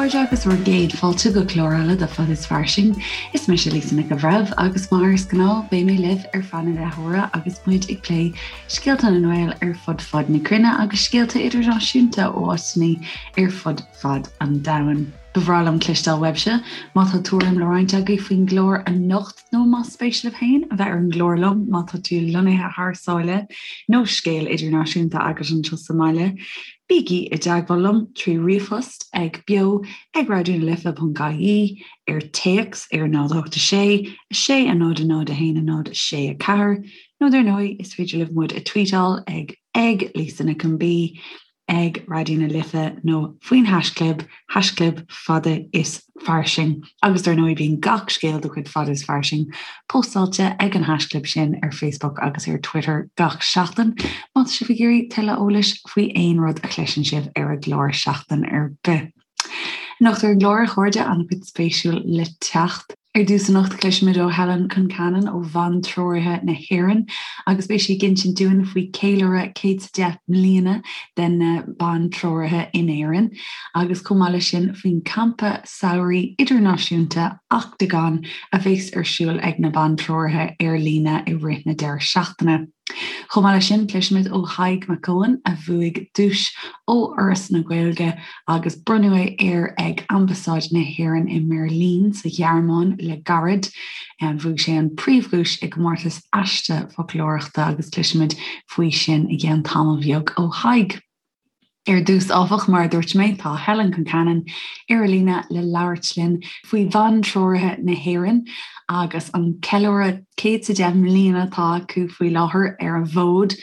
chairde agus bhur gcéad fáilte go clár eile de Fad is Fairsing. Is mise Lisa Nic an Bhreithimh agus mar is gnáth beidh mé libh ar feadh na leathuaire agus muid ag plé scéalta na nGael ar fud fad na cruinne agus scéalta idirnáisiúnta ó áiteanna ar fud fad an domhain. Ba bhreá liom cloisteáil uaibhse má tá tuairim le roinnt agaibh faoin gclár anocht nó más spéis libh féin a bheith ar an gclár liom má tá tú lonnaithe thar sáile nó scéal idirnáisiúnta agat anseo sa mbaile, bígí i dteagmháil liom trí ríomhphost ag beo ag raidionalife.ie, ar téacs ar 0 8 6 6 0 0 1 0 6 4, nó dar ndóigh is féidir libh muid a tweetáil ag ag Lisa Nic an B. ag Raidió na Life nó faoin haischlib, haischlib fada is fairsing. Agus dar ndóigh bíonn gach scéal de chuid Fada is Fairsing póstáilte ag an haischlib sin ar Facebook agus ar Twitter gach seachtain má tá sibh ag iarraidh tuilleadh eolais faoi aon rud a chloiseann sibh ar an gclár seachtain ar bith. Anocht ar an gclár, a chairde, an-chuid spéisiúil le teacht. Ar dtús anocht cloisfimid ó Helen Concannon ó Bhantreoraithe na hÉireann agus beidh sí ag insint dúinn faoi ceiliúradh 110 mbliana de na Bantreoraithe in Éirinn agus chomh maith leis sin faoin campa samhraidh idirnáisiúnta Octagon a bheas ar siúl ag na Bantreoraithe ar líne i rith na deireadh seachtaine. Chomh maith leis sin, cloisfimid ó Thadhg Mac Eoin, a bhuaigh duais ó Fhoras na Gaeilge agus bronnadh é air ag Ambasáid na hÉireann i mBeirlín sa Ghearmáin le gairid. Bhuaigh sé an príomhdhuais i gcomórtas aiste foclóireachta agus cloisfimid faoi sin i gceann tamall bheag ó Thadhg. Ar dtús, áfach, mar a dúirt mé, tá Helen Concannon ar an líne le labhairt linn faoi Bhantreoraithe na hÉireann agus an ceiliúradh 110 mbliana atá acu faoi láthair ar an bhfód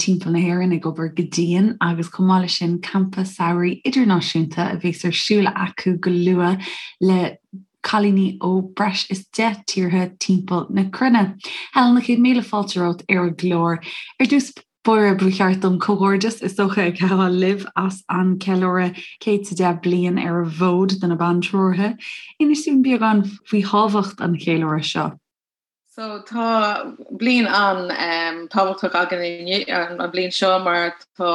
timpeall na hÉireann ag obair go dian agus chomh maith leis sin campa samhraidh idirnáisiúnta a bheas ar siúl acu go luath le cailíní ó breis is 10 tíortha timpeall na cruinne. Helen, 100,000 fáilte romhat ar an gclár. Ar dtús báire, ba cheart dom comhghairdeas is dócha a ghabháil libh as an ceiliúradh 110 bliain ar an bhfód do na Bantreoraithe. Inis dúinn beagán faoi thábhacht an cheiliúradh seo. So tá bliain an-tábhachtach againn inniu, an bhliain seo mar tá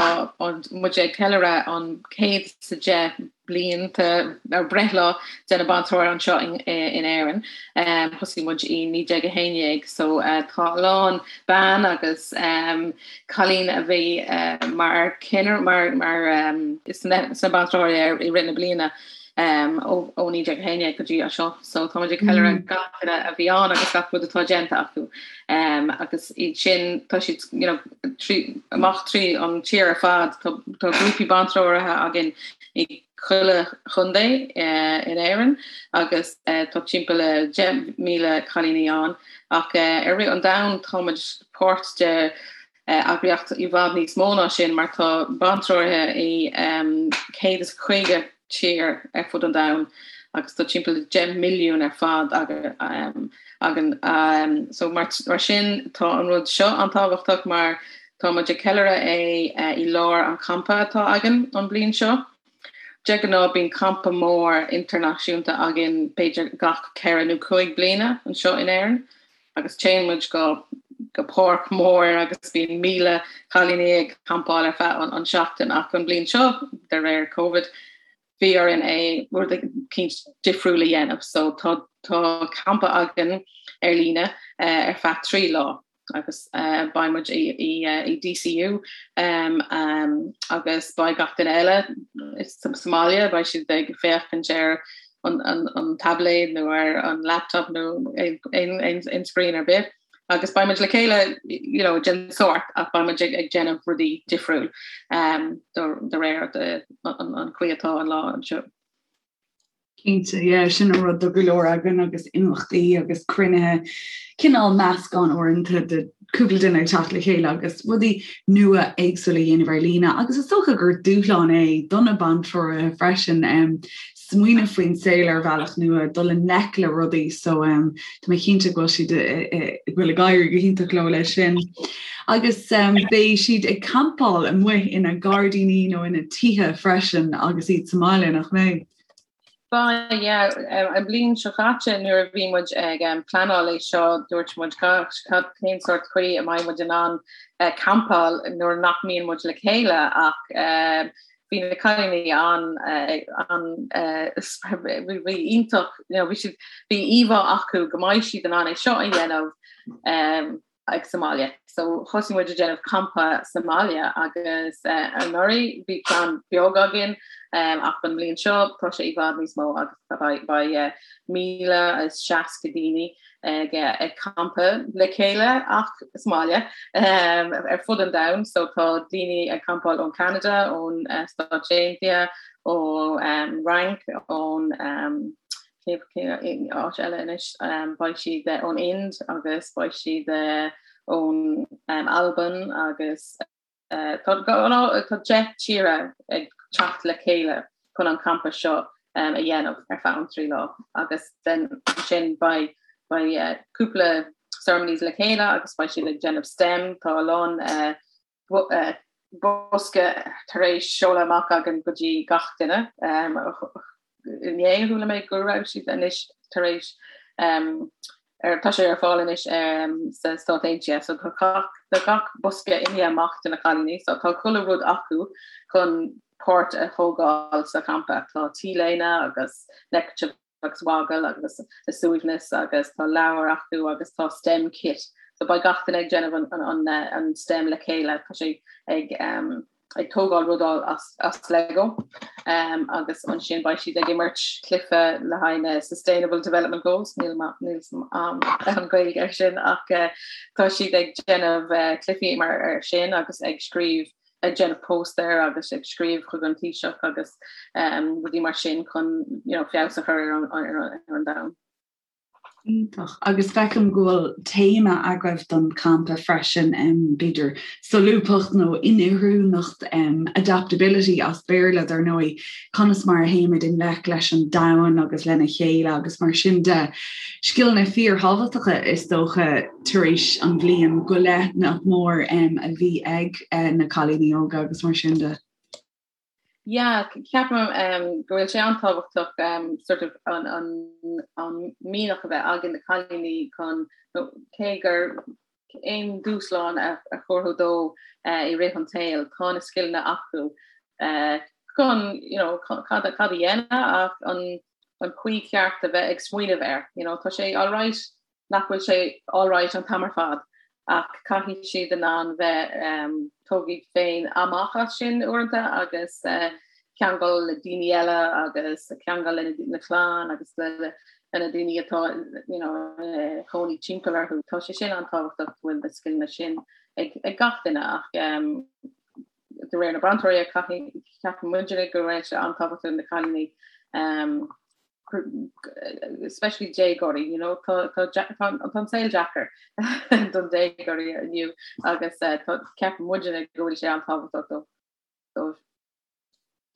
muid ag ceiliúradh an 110 blianta ar breithlá de na Bantreoraithe anseo in Éirinn. Thosaigh muid i 1911 so tá a lán bean agus cailín a bhí mar ceann mar mar sna Bantreoraithe i rith na bliana ó 1911 go dtí seo. So tá muid ag ceiliúradh gach duine a bhí ann agus gach rud atá déanta acu. Agus iad sin tá siad you know, trí, amach trí an tír ar fad tá grúpaí bantreoraithe againn i chuile chontae in Éirinn agus tá timpeall le 10,000 cailíní ann ach ar rith an domhain tá muid páirt de eagraíocht i bhfad níos mó ná sin mar tá bantreoraithe i 150 tír ar fud an domhain agus tá timpeall le 10 milliún ar fad againn. So mar sin tá an rud seo an-tábhachtach mar tá muid ag ceiliúradh é i lár an champa atá againn an bliain seo. De ghnáth bíonn campa mór idirnáisiúnta againn b'fhéidir gach ceithre nó cúig bliana anseo in Éirinn agus téann muid go go páirc mór agus bíonn 1,000 cailíní ag campáil ar feadh an seachtain ach an bliain seo de réir Covid bhí orainn é rud eicínt difriúil a dhéanamh so tá tá campa againn ar líne ar feadh 3 lá agus beidh muid i i i DCU um, um, agus beidh gach duine eile sa mbaile beidh siad ag féachaint ar an, an, an tablet nó ar an laptop nó aon, aon, aon screen ar bith. Agus beidh muid le chéile you know, den sórt ach beidh muid ag, ag déanamh rudaí difriúil um, de réir de, an, an chaoi atá an lá anseo. Cinnte, yeah, sin an rud do go leor againn agus imeachtaí agus cruinnithe, cineál meascán uaireanta de cúpla duine ag teacht le chéile agus rudaí nua éagsúla a dhéanamh ar líne agus is dócha gur dúshlán é do na bantreoraithe freisin um, smaoineamh faoin saol ar bhealach nua, dul i ngleic le rudaí so um, tá mé cinnte go bhfuil siad go bhfuil ag éirí go hiontach leo leis sin. Agus um, beidh siad ag campáil amuigh ina ngairdíní nó ina tithe freisin agus iad sa mbaile nach mbeidh? Beidh, yeah. An bliain seo caite nuair a bhí muid ag pleanáil é seo dúirt muid cad cén sórt chaoi a mbeidh muid in ann campáil nuair nach mbíonn muid le chéile ach. bhí na cailíní an an bhí iontach you know bhí siad bhí íomhá acu go mbeidh siad in ann é seo a dhéanamh um, ag sa mbaile. So thosaigh muid ag déanamh campa sa mbaile agus anuraidh bhí ceann beag againn ach an bhliain seo tá sé i bhfad níos mó agus beidh 1,060 daoine ag ag campa le chéile ach sa mbaile ar fud an domhain. So tá daoine ag campáil ón Canada, ón Stáit Aontaithe, ón Fhrainc, ón Cén áit eile anois? Beidh siad ón Ind agus beidh siad ón Albain agus tá 10 tíre ag teacht le chéile chun an campa seo a dhéanamh ar feadh an 3 lá agus then ansin beidh beidh cúpla ceremonies le chéile agus beidh siad ag déanamh STEM, tá a lán bosca tar éis seoladh amach againn go dtí gach duine. Inné chuala mé go raibh siad anois tar éis tá sé ar fáil anois sa Stát Aontaithe so tá gach gach bosca imithe amach do na cailíní so tá chuile rud acu chun páirt a thógáil sa champa. Tá T-léine agus neckerchief agus waggle agus a suaimhneas agus tá leabhar acu agus tá STEM kit. So beidh gach duine ag déanamh an, an, an, an STEM le chéile, tá sé ag, um, ag tógáil rudaí as, as Lego um, agus ansin beidh siad ag imirt cluiche le haghaidh na Sustainable Development Goals, níl níl um, an Gaeilge ar sin ach uh, tá siad ag déanamh uh, cluichí mar ar sin agus ag scríobh ag déanamh póstaer agus ag scríobh chuig an Taoiseach agus rudaí mar sin chun you know, feabhas a chur ar an, ar an, ar an domhan. Iontach. Agus feicim go bhfuil téama agaibh don champa freisin, um, b'fhéidir solúbthacht nó inoiriúnacht, um, adaptability as Béarla dar ndóigh, conas mar a théimid i ngleic leis an domhan agus lena chéile agus mar sin de. Scileanna fíorthábhachtacha is dócha tar éis an bhliain go leith nach mór a bhí ag na cailíní óga agus mar sin de. Yeah, ceapaim go bhfuil sé an-tábhachtach sort of an an an mianach a bheith ag na cailíní chun cé gur aon dúshlán a thabharfá dóibh i rith an tsaoil, tá na scileanna acu chun you know cad cad a dhéanamh ach an an chaoi cheart a bheith ag smaoineamh air. You know, tá sé alright nach bhfuil sé alright an t-am ar fad ach caithfidh siad in ann bheith um, tóg iad féin amach as sin uaireanta agus uh, ceangal le daoine eile agus ceangal le na clann agus le le na daoine atá you know, uh, cónaí timpeall orthu. Tá sé sin an-tábhachtach go bhfuil na scileanna sin ag, ag gach duine ach um, de réir na bronntóirí ceapann muidne go raibh sé an-tábhachtach na cailíní um, especially déagóirí, you know, tá tá tá an saol deacair don déagóirí inniu agus eh, tá ceapann muidne go bhfuil sé an-tábhachtach dóibh.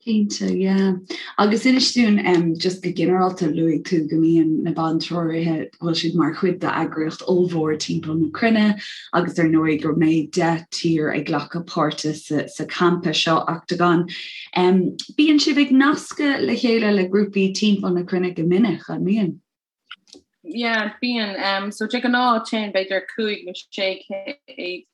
Cinnte, yeah. Agus inis dúinn um, just go ginearálta luaigh tú go mbíonn na bantreoraithe go bhfuil siad mar chuid d'eagraíocht ollmhór timpeall na cruinne agus ar ndóigh go mbeidh 10 tír ag glacadh páirte sa, sa campa seo Octagon. Um, bíonn sibh ag nascadh le chéile le grúpaí timpeall na cruinne go minic, an mbíonn? Yeah, bíonn. Um, so de ghnáth téann b'fhéidir 5 nó 600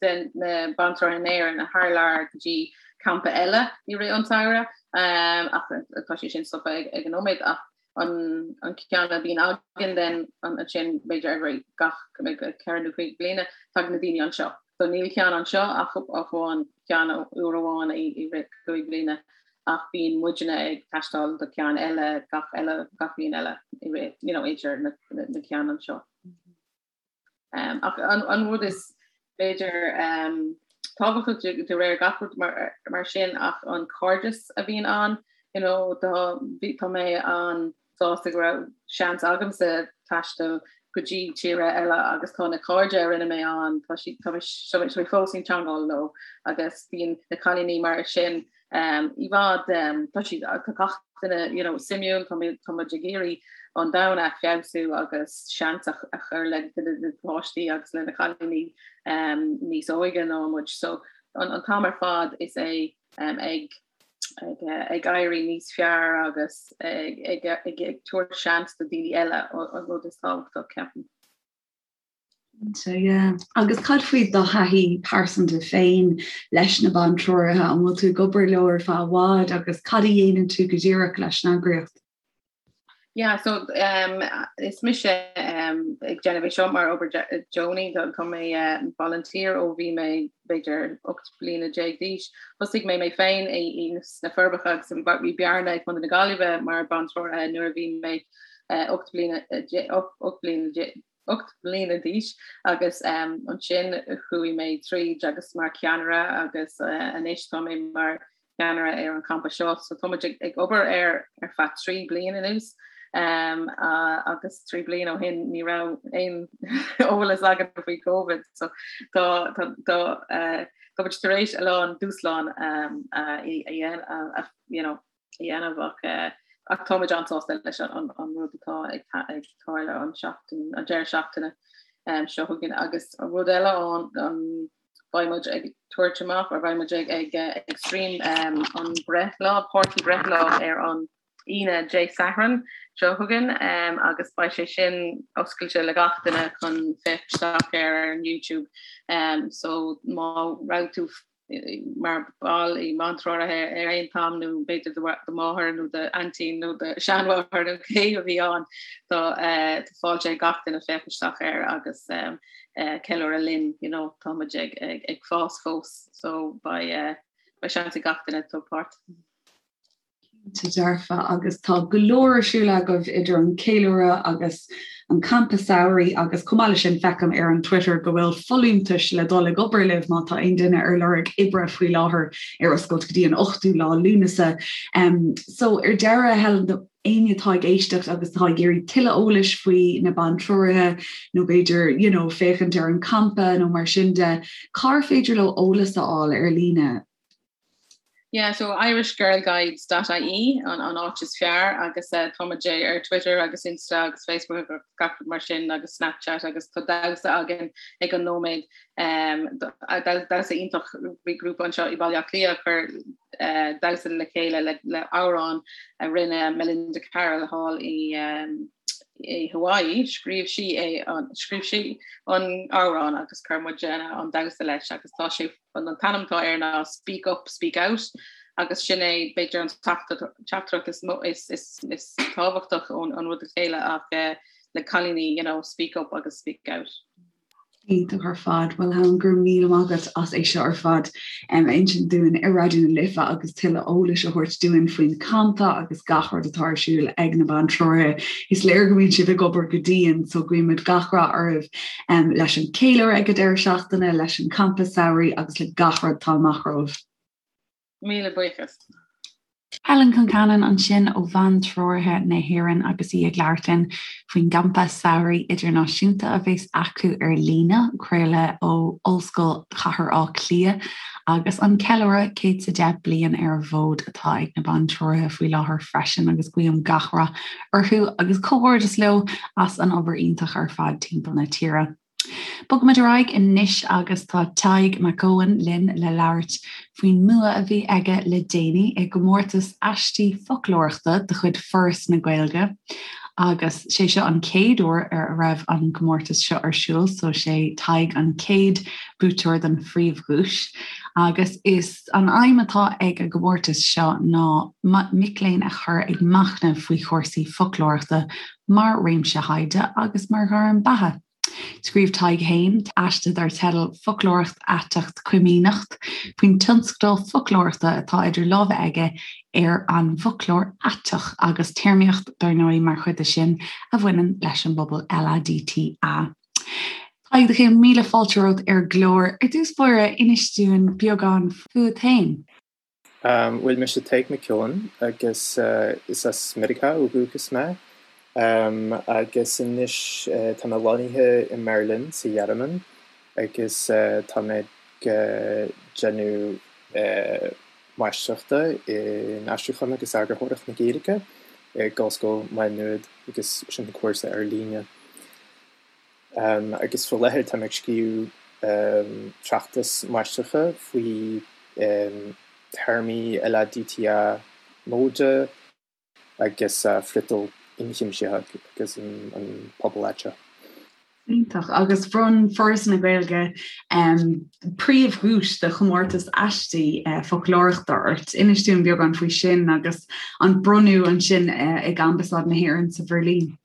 de na bantreoraithe in Éirinn thar lear go dtí campa eile i rith an tsamhraidh. Um, ach tá sé sin stoptha ag, ag an nóiméad ach an, an ceann a bhíonn againn then ansin b'fhéidir every gach 4 nó 5 bliana tagann na daoine anseo. So níl ceann anseo ach amháin ceann uair amháin i rith 5 bliana ach bíonn muidne ag taisteal do ceann eile gach eile gach bliain eile i rith you know idir na, na, na ceann anseo. Um, ach an, an rud is b'fhéidir um, tábhachtach de, de réir gach rud mar, mar sin ach an cairdeas a bhíonn ann you know, tá, tá mé an sásta go raibh seans agamsa taisteal go dtí tíre eile agus tá na cairde a rinne mé ann, tá siad tá mé fós i dteangmháil leo agus bíonn na cailíní mar sin um, i bhfad um, tá siad tá gach duine you know, suimiúil tá tá muid ag iarraidh an domhan a feabhsú agus seans a, a chur le na páistí agus le na cailíní um, níos óige ná muid so an, an t-am ar fad is é um, ag ag éirí níos fearr agus ag tabhairt seans do daoine eile an rud is tábhachtach ceapaim. Cinnte, yeah. Agus cad faoi do thaithí pearsanta féin leis na Bantreoraithe? An bhfuil tú ag obair leo ar feadh i bhfad agus cad a dhéanann tú go díreach leis an eagraíocht? Yeah, so um, is mise um, ag déanamh é seo mar obair deonaí tá mé uh, volunteer ó bhí mé b'fhéidir 18 bliana d'aois. Thosaigh mé mé féin i sna Forbacha agus bhí Bearna ag Contae na Gaillimhe mar bantreoraithe nuair a bhí mé uh, 8 bliana 8 bliana 8 mbliana d'aois agus ansin chuaigh mé tríd agus mar cheannaire agus anois tá mé mar cheannaire ar an campa seo. So tá muid ag obair air ar feadh 3 bliain anuas agus 3 bliain ó shin ní raibh aon eolas againn faoi Covid so tá tá tá tá muid tar éis a lán dúshlán a a you know dhéanamh ach ach táimid an-sásta leis an an rud atá ag ag tarlú an seachtain an deireadh seachtaine seo chugainn agus an rud eile an an beidh muid ag tabhairt amach or beidh muid ag ag ag stream an breithlá páirtí breithlá ar an Aoine Dé Sathairn seo chugainn agus beidh sé sin oscailte le gach duine chun féach isteach ar ar an YouTube so má raibh tú mar ball i mBantreoraithe ar aon t-am nó b'fhéidir do mháthair nó d'aintín nó do sheanmháthair nó cé a bhí ann tá fáilte ag gach duine féach isteach air agus ceiliúradh linn you know tá muid ag ag fás fós so beidh beidh seans ag gach duine tabhairt páirt. Cinnte dearfa, agus tá go leor ar siúl agaibh idir an ceiliúradh agus an campa samhraidh agus chomh maith leis sin feicim ar an Twitter go bhfuil folúntais le dul ag obair libh má tá aon duine ar lorg oibre faoi láthair ar oscailt go dtí an 8ú lá Lúnasa. Um, so ar deireadh Helen éinne atá ag éisteacht agus atá ag iarraidh tuilleadh eolais faoi na bantreoraithe nó b'fhéidir you know, féachaint ar an campa nó mar sin de, cár féidir leo eolas a fháil ar líne? Yeah, so irishgirlguides.ie an, an áit is fearr agus uh, tá muid ar Twitter agus Insta agus Facebook agus gach rud mar sin agus Snapchat agus tá damhsa againn ag an nóiméad um, damhsa iontach bhí grúpa anseo i Baile Átha Cliath a chuir uh, damhsa le chéile le, le amhrán a rinne Melinda Carroll thall i um, i Hawaii, scríobh sí é an scríobh sí an amhrán agus chuir muid an damhsa leis agus tá sé An t-ainm atá air ná Speak Up, Speak Out agus sin é b'fhéidir an teachtaireacht is is is tábhachtach ón an rud a chéile ach eh, le cailíní you know, speak up agus speak out. Iontach ar fad. Bhuel Helen, go raibh míle maith agat as é seo ar fad a insint dúinn ar Raidió na Life agus tuilleadh eolais a thabhairt dúinn faoin campa agus gach rud atá ar siúl ag na Bantreoraithe. Is léir go mbíonn sibh ag obair go dian so guímid gach rath oraibh leis an chéiliúradh ag an deireadh seachtaine, leis an campa samhraidh agus le gach rud atá amach romhaibh. Míle buíochas. Helen Concannon ansin ó Bhantreoraithe na hÉireann agus í ag labhairt linn faoin gcampa samhraidh idirnáisiúnta a bheas acu ar líne, craoladh ó Ollscoil Chathair Átha Cliath agus an ceiliúradh 110 bliain ar an bhfód atá ag na Bantreoraithe faoi láthair freisin agus guím gach rath orthu agus comhghairdeas leo as an obair iontach ar fad timpeall na tíre. Bogfaimid ar aghaidh anois agus tá Tadhg Mac Eoin linn le labhairt faoin mbua a bhí aige le déanaí i gcomórtas aistí foclóireachta de chuid Foras na Gaeilge agus sé seo an chéad uair ar a raibh an comórtas seo ar siúl so sé Tadhg an chéad buaiteoir don phríomhdhuais agus is An aidhm atá ag an gcomórtas seo ná mic léinn a chur ag machnamh faoi chúrsaí foclóireachta mar réimse thaighde agus mar ghairm beatha. Scríobh Tadhg féin aiste dar teideal 'Foclóireacht Aiteach Coimíneacht' faoin tionscadal foclóireachta atá idir lámha aige ar an bhfoclóir aiteach agus téarmaíocht dar ndóigh mar chuid de sin a bhaineann leis an bpobal LADTA. Tadhg, do chéad míle fáilte romhat ar an gclár. Ar dtús báire, inis dúinn beagán fúat féin. Bhuel, mise Tadhg Mac Eoin agus is as Meiriceá ó dhúchas mé. Agus anois tá mé lonnaithe i mBeirlin sa Ghearmáin agus tá mé ag déanamh máistreachta in Aistriúchán agus Eagarthóireacht na Gaeilge ag Ollscoil Mhá Nuad agus sin cúrsa ar líne. Agus faoi láthair táim ag scríobh tráchtas máistreachta faoi théarmaí LADTA móide agus friotal ionchuimsitheach agus an pobal aiteach. Iontach. Agus bhronn Foras na Gaeilge príomhdhuais do chomórtas aistí foclóireachta ort. Inis dúinn beagán faoi sin agus an bronnadh ansin ag Ambasáid na hÉireann sa Bheirlín.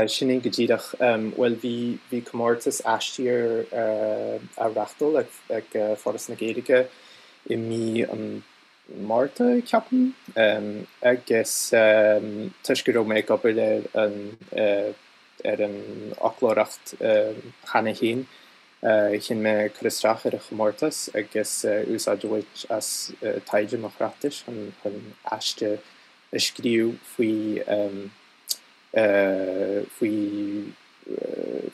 Sin é go díreach. Bhuel, bhí bhí comórtas aistí ar á reáchtáil ag Foras na Gaeilge i mí an Márta, ceapaim, agus toisc go raibh mé ag obair ar an ar an fhoclóireacht cheana féin, chinn mé cur isteach ar an chomórtas agus úsáid a bhaint as taighde mo thráchtais chun aiste a scríobh faoi faoi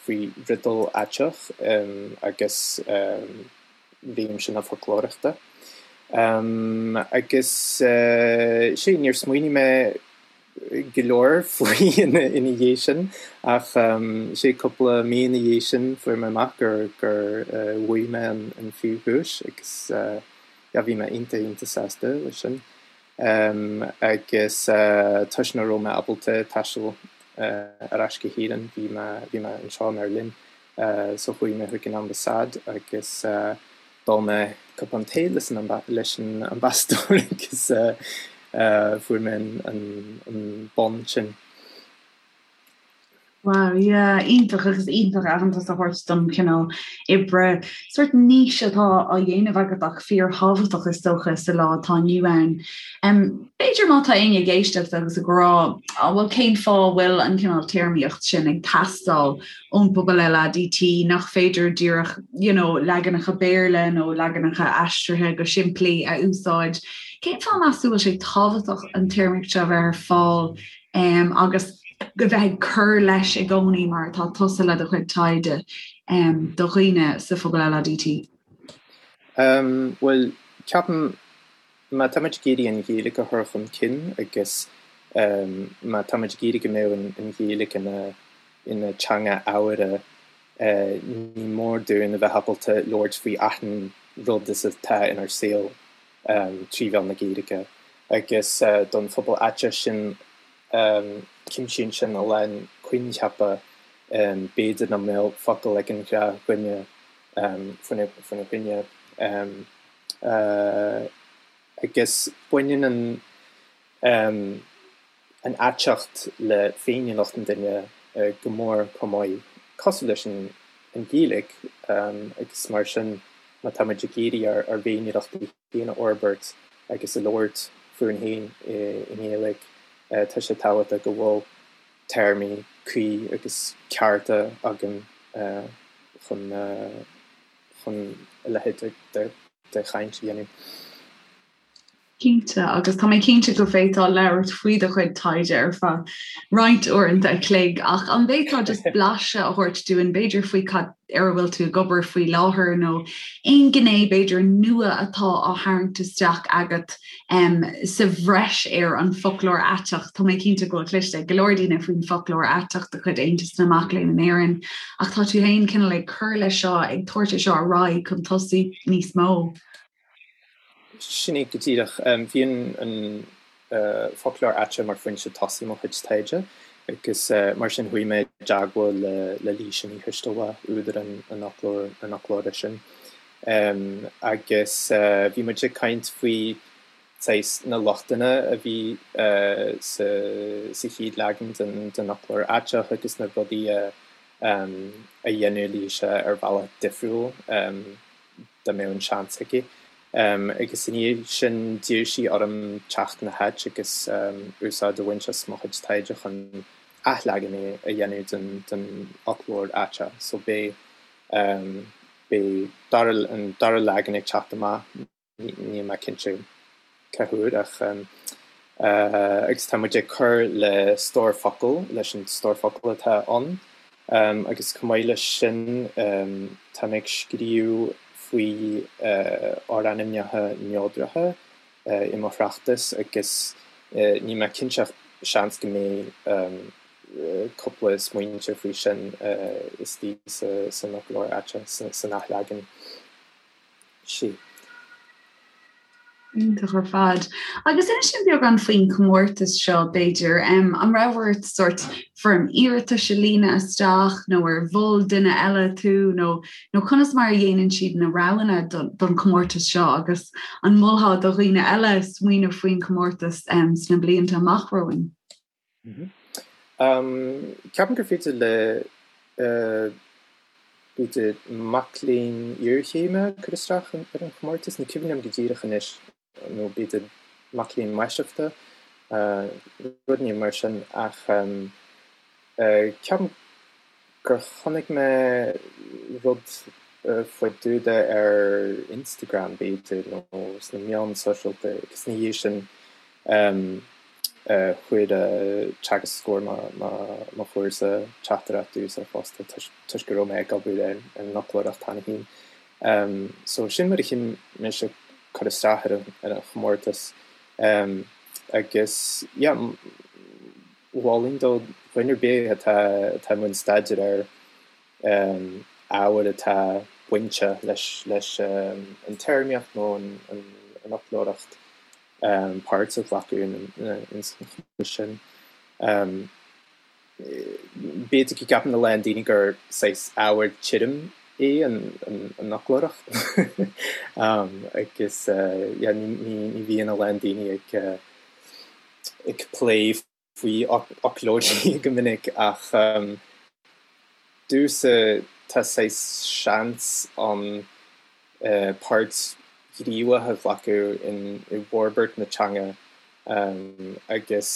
faoi fhriotal aiteach agus réimse na foclóireachta. Agus sea, níor smaoinigh mé go leor faoi ina dhiaidh sin ach sea, cúpla mí ina dhiaidh sin fuair mé amach gur gur bhuaigh mé an phríomhdhuais agus yeah bhí mé iontach iontach sásta leis sin. Agus toisc nach raibh mé ábalta taisteal ar ais go hÉirinn bhí mé bhí mé anseo i mBeirlín so chuaigh mé chuig an ambasáid agus d'ól mé cupán tae leis an leis an ambasadóir agus fuair mé an bonn sin. Wow, yeah, iontach agus iontach aitheantas a thabhairt don chineál oibre, sórt niche atá á dhéanamh agat ach fíorthábhachtach is dócha sa lá atá inniu ann. B'fhéidir má tá éinne ag éisteacht agus ag rá, á bhuel cén fáth a bhfuil an cineál téarmaíocht sin ag teastáil ón bpobal LADT, nach féidir díreach you know, leaganacha Béarla nó leaganacha aistrithe go simplí a úsáid. Cén fáth meas tú bhfuil sé tábhachtach an téarmaíocht seo a bheith ar fáil um, agus go bheith ag cur leis i gcónaí mar atá tusa le do chuid taighde um, do dhaoine sa phobal LADT? Um, well, ceapaim Má táimid ag iarraidh an Ghaeilge a chur chun cinn agus má táimid ag iarraidh go mbeadh an Ghaeilge ina teanga ábhartha, ní mór dúinn a bheith ábalta labhairt faoi achan rud is atá inár saol trí mheán na Gaeilge. Agus don phobal aiteach sin, cuimsíonn sin a lán coincheapa, b'fhéidir nach mbeadh focal ag an ghnáthdhuine faoina choinne. Agus baineann an an aiteacht le féiniúlacht an duine go mór chomh maith, cosúil leis an Ghaeilge, agus mar sin má tá muid ag iarraidh ár bhféiniúlachtaí féin a fhorbairt agus a labhairt fúinn féin i nGaeilge, tá sé tábhachtach go bhfuil téarmaí cuí agus cearta againn chun chun a leithéid de chaint a dhéanamh. Cinnte, agus tá mé cinnte go bhféadfá labhairt faoi do chuid taighde ar feadh roinnt uaireanta a chloig, ach an bhféadfá just blaiseadh a thabhairt dúinn b'fhéidir faoi cad ar a bhfuil tú ag obair faoi láthair nó aon ghné b'fhéidir nua atá á tharraingt isteach agat um, sa bhreis ar an bhfoclóir aiteach. Tá mé cinnte go bhfuil cloiste ag go leor daoine faoin bhfoclóir aiteach de chuid Aontas na Mac Léinn in Éirinn, ach tá tú féin cineál ag cur leis seo, ag tabhairt é seo ar aghaidh chun tosaigh níos mó. Sin é go díreach. Bhí an foclóir aiteach mar foinse tosaigh mo chuid taighde agus mar sin chuaigh mé i dteagmháil le Laoise Ní Choistealbha, údar an fhoclóra sin. Agus bhí muid ag caint faoi saghas na lochtanna a bhí sa chéad leagan den fhoclóir aiteach agus na rudaí a dhéanadh Laoise ar bhealach difriúil dá mbeadh an seans aici. Agus i ndiaidh sin d'iarr sí orm teacht ina háit agus úsáid a bhaint as mo chuid taighde chun athleagan a dhéanamh den fhoclóir aiteach. So beidh Beidh dara, an dara leagan ag teacht amach, níl mé cinnte cá huair ach agus tá muid ag cur le stór focal, leis an stór focal atá ann agus chomh maith leis sin tá mé ag scríobh faoi fhorainmneacha neodracha i mo thráchtas agus níl mé cinnte ach seans go mbeidh cúpla smaointe faoi sin istigh san fhoclóir aiteach, san athleagan. Sea. Iontach ar fad. Agus inis dúinn beagán faoin chomórtas seo, b'fhéidir. An raibh ort sórt foirm iarratais a líonadh isteach nó ar mhol duine eile tú nó nó conas mar a dhéanann siad na roghanna don chomórtas seo agus an molfá do dhaoine eile smaoineamh faoin chomórtas sna blianta amach romhainn? Ceapaim gur féidir le b'fhéidir mac léinn iarchéime cur isteach ar an chomórtas, ní cuimhin liom go díreach anois, nó b'fhéidir mac léinn máistreachta, rud éigin mar sin, ach ceapaim gur chonaic mé rud faoi dtaobh de ar Instagram b'fhéidir, nó sna meáin sóisialta agus ina dhiaidh sin Chuir teagascóir mo chúrsa teachtaireacht domhsa fosta toisc go raibh mé ag obair ar an fhoclóireacht cheana féin. So sin mar a chinn mise cur isteach ar an chomórtas. Agus yeah, mholfainn do dhuine ar bith atá atá i mbun staidéir ar ábhar atá bainteach leis an téarmaíocht nó an fhoclóireacht páirt a ghlacadh ins an chomórtas sin. B'fhéidir go gceapann a lán daoine gur saghas ábhar tirim é an fhoclóireacht agus yeah ní bhíonn a lán daoine ag plé faoi fhoclóirí go minic ach domhsa tá saghas seans ann páirt ghníomhach a ghlacadh i bhforbairt na teanga agus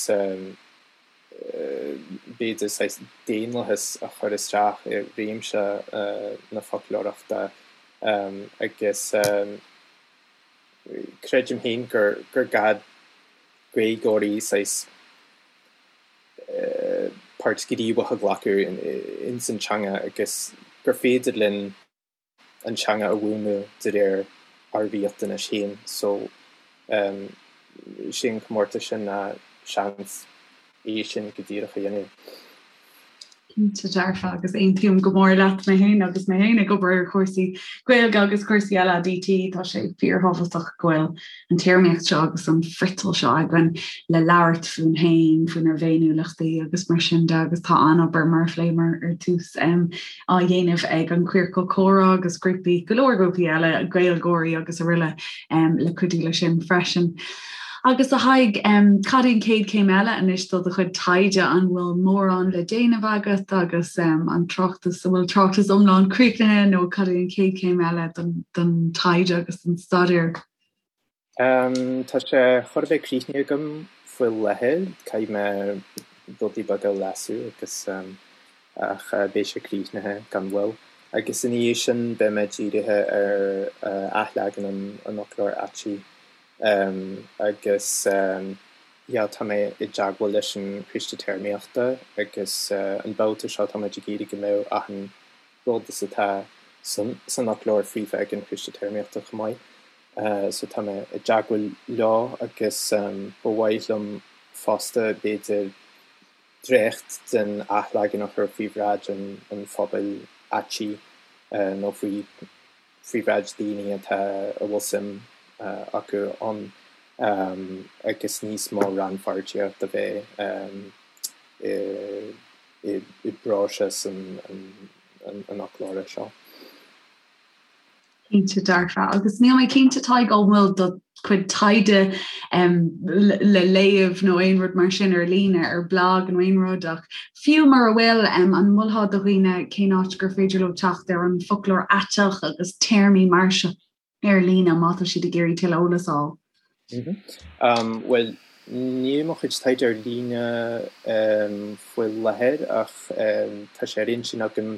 b'fhéidir saghas daonlathas a chur isteach i réimse na foclóireachta agus creidim féin gur gá Gaeilgeoirí saghas páirt ghníomhach a ghlacadh ins an teanga agus gur féidir linn an teanga a mhúnlú de réir ár riachtanais féin. So, sé an comórtas sin ná seans é sin go díreach a dhéanamh. Cinnte dearfa agus aontaím go mór leat mé féin agus mé féin ag obair ar chúrsaí Gaeilge agus cúrsaí eile DT, tá sé fíorthábhachtach go bhfuil an téarmaíocht seo agus an friotal seo againn le labhairt fúinn féin, faoinár bhféiniúlachtaí agus mar sin de agus tá an-obair mar a phléamar ar tús á dhéanamh ag an Queercal Comhrá agus grúpaí, go leor grúpaí eile, Gaeilgeoirí agus araile le cuidiú leis sin freisin. Agus a Thaidhg, cad é an chéad chéim eile anois do do chuid taighde? An bhfuil mórán le déanamh agat agus an tráchtas, an bhfuil tráchtas iomlán críochnaithe nó cad é an chéad chéim eile don taighde agus don staidéar? Tá sé chóir a bheith críochnaithe agam faoi láthair, caithfidh mé rudaí beaga a leasú agus ach beidh sé críochnaithe gan mhoill. Agus ina dhiaidh sin beidh mé dírithe ar athleagan an fhoclóir aitigh agus yeah tá mé i dteagmháil leis an Coiste Téarmaíochta agus an babhta seo tá muid ag iarraidh go mbeadh achan rud is atá san fhoclóir faofa ag an Choiste Téarmaíochta chomh maith. So tá mé i dteagmháil leo agus ba mhaith liom fosta b'fhéidir dréacht den athleagan a chur faoi bhráid an phobail aitigh nó faoi faoi bhráid daoine atá a bhfuil suim acu ann agus níos mó rannpháirtíocht a bheith i i bpróiseas an fhoclóra seo. Cinnte dearfa. Agus níl mé cinnte Tadhg an bhfuil do chuid taighde le léamh nó aon rud mar sin ar líne, ar blag nó aon rud ach fiú mura bhfuil, an molfá do dhaoine cén áit gur féidir leo teacht ar an bhfoclóir aiteach agus téarmaí mar seo? ar líne má tá siad ag iarraidh tuilleadh eolas a fháil. Bhuel, níl mo chuid taighde ar líne faoi láthair ach tá sé ar intinn agam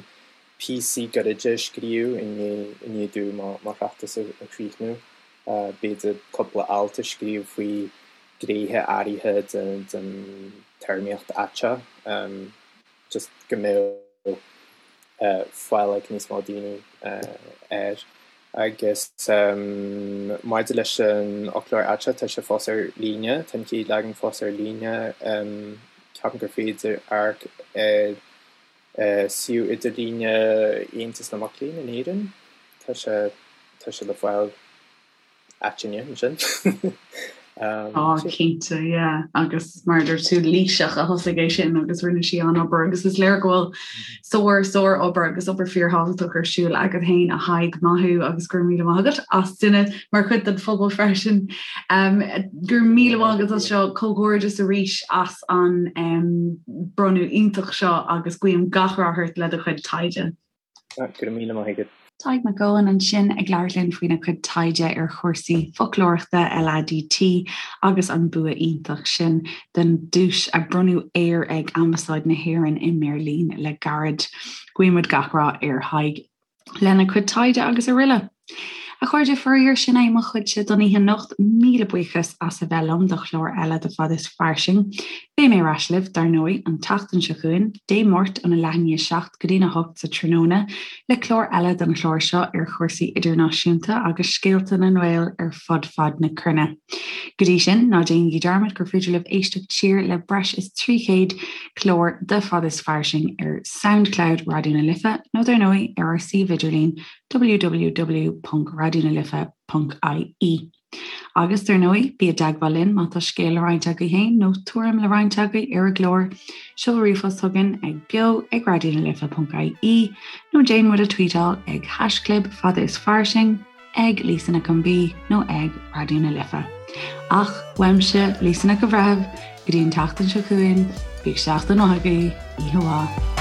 píosaí gairide a scríobh i ndiaidh domh mo thráchtas a chríochnú. B'fhéidir cúpla alt a scríobh faoi ghnéithe áirithe den téarmaíocht aiteach. just go mbeadh fáil ag níos mó daoine air. Agus maidir leis an fhoclóir aiteach, tá sé fós ar líne, tá an chéad leagan fós ar líne. Ceapaim gur féidir amharc ar suíomh idirlíne Aontas na Mac Léinn in Éirinn, tá sé, tá sé le fáil. Aitinne ansin. Á, cinnte, yeah. Agus mar a dúirt tú, Laoiseach a thosaigh é sin agus rinne sí an-obair agus is léir go bhfuil sár, sár-obair agus obair fíorthábhachtach ar siúl agat féin a Thaidhg, maith thú agus go raibh míle maith agat as duine mar chuid den phobal freisin. Go raibh míle maith agat as seo, comhghairdeas arís as an bronnadh iontach seo agus guím gach rath ort le do chuid taighde. Go raibh míle maith agat. Tadhg Mac Eoin ansin ag labhairt linn faoina chuid taighde ar chúrsaí foclóireachta, LADT, agus an bua iontach sin den duais a bronnadh air ag Ambasáid na hÉireann i mBeirlín le gairid. Guímid gach rath ar Thadhg lena chuid taighde agus araile. A chairde, faraor, sin é mo chuidse don oíche anocht. Míle buíochas as a bheith liom do chlár eile de Fad is Fairsing. Beidh mé ar ais libh, dar ndóigh, an tseachtain seo chugainn, Dé Máirt óna leath i ndiaidh a 7 go dtína 8 sa tráthnóna, le clár eile den chlár seo ar chúrsaí idirnáisiúnta agus scéalta na nGael ar fud fad na cruinne. Go dtí sin, ná déanaigí dearmad gur féidir libh éisteacht siar le breis is 300 clár de Fad is Fairsing ar Soundcloud Raidió na Life nó dar ndóigh ar ár suíomh idirlín www.raidionalife.ie. Agus, dar ndóigh, bí i dteagmháil linn má tá scéal le roinnt agaibh féin nó tuairim le roinnt agaibh ar an gclár. Seol ríomhphost chugainn ag beo ag raidionalife.ie nó déan muid a tweetáil ag haischlib fada is fairsing, ag Lisa Nic an B nó ag Raidió na Life. Ach, uaimse, Lisa Nic an Bhreithimh, go dtí an tseachtain seo chugainn, bíodh seachtain mhaith agaibh, oíche mhaith.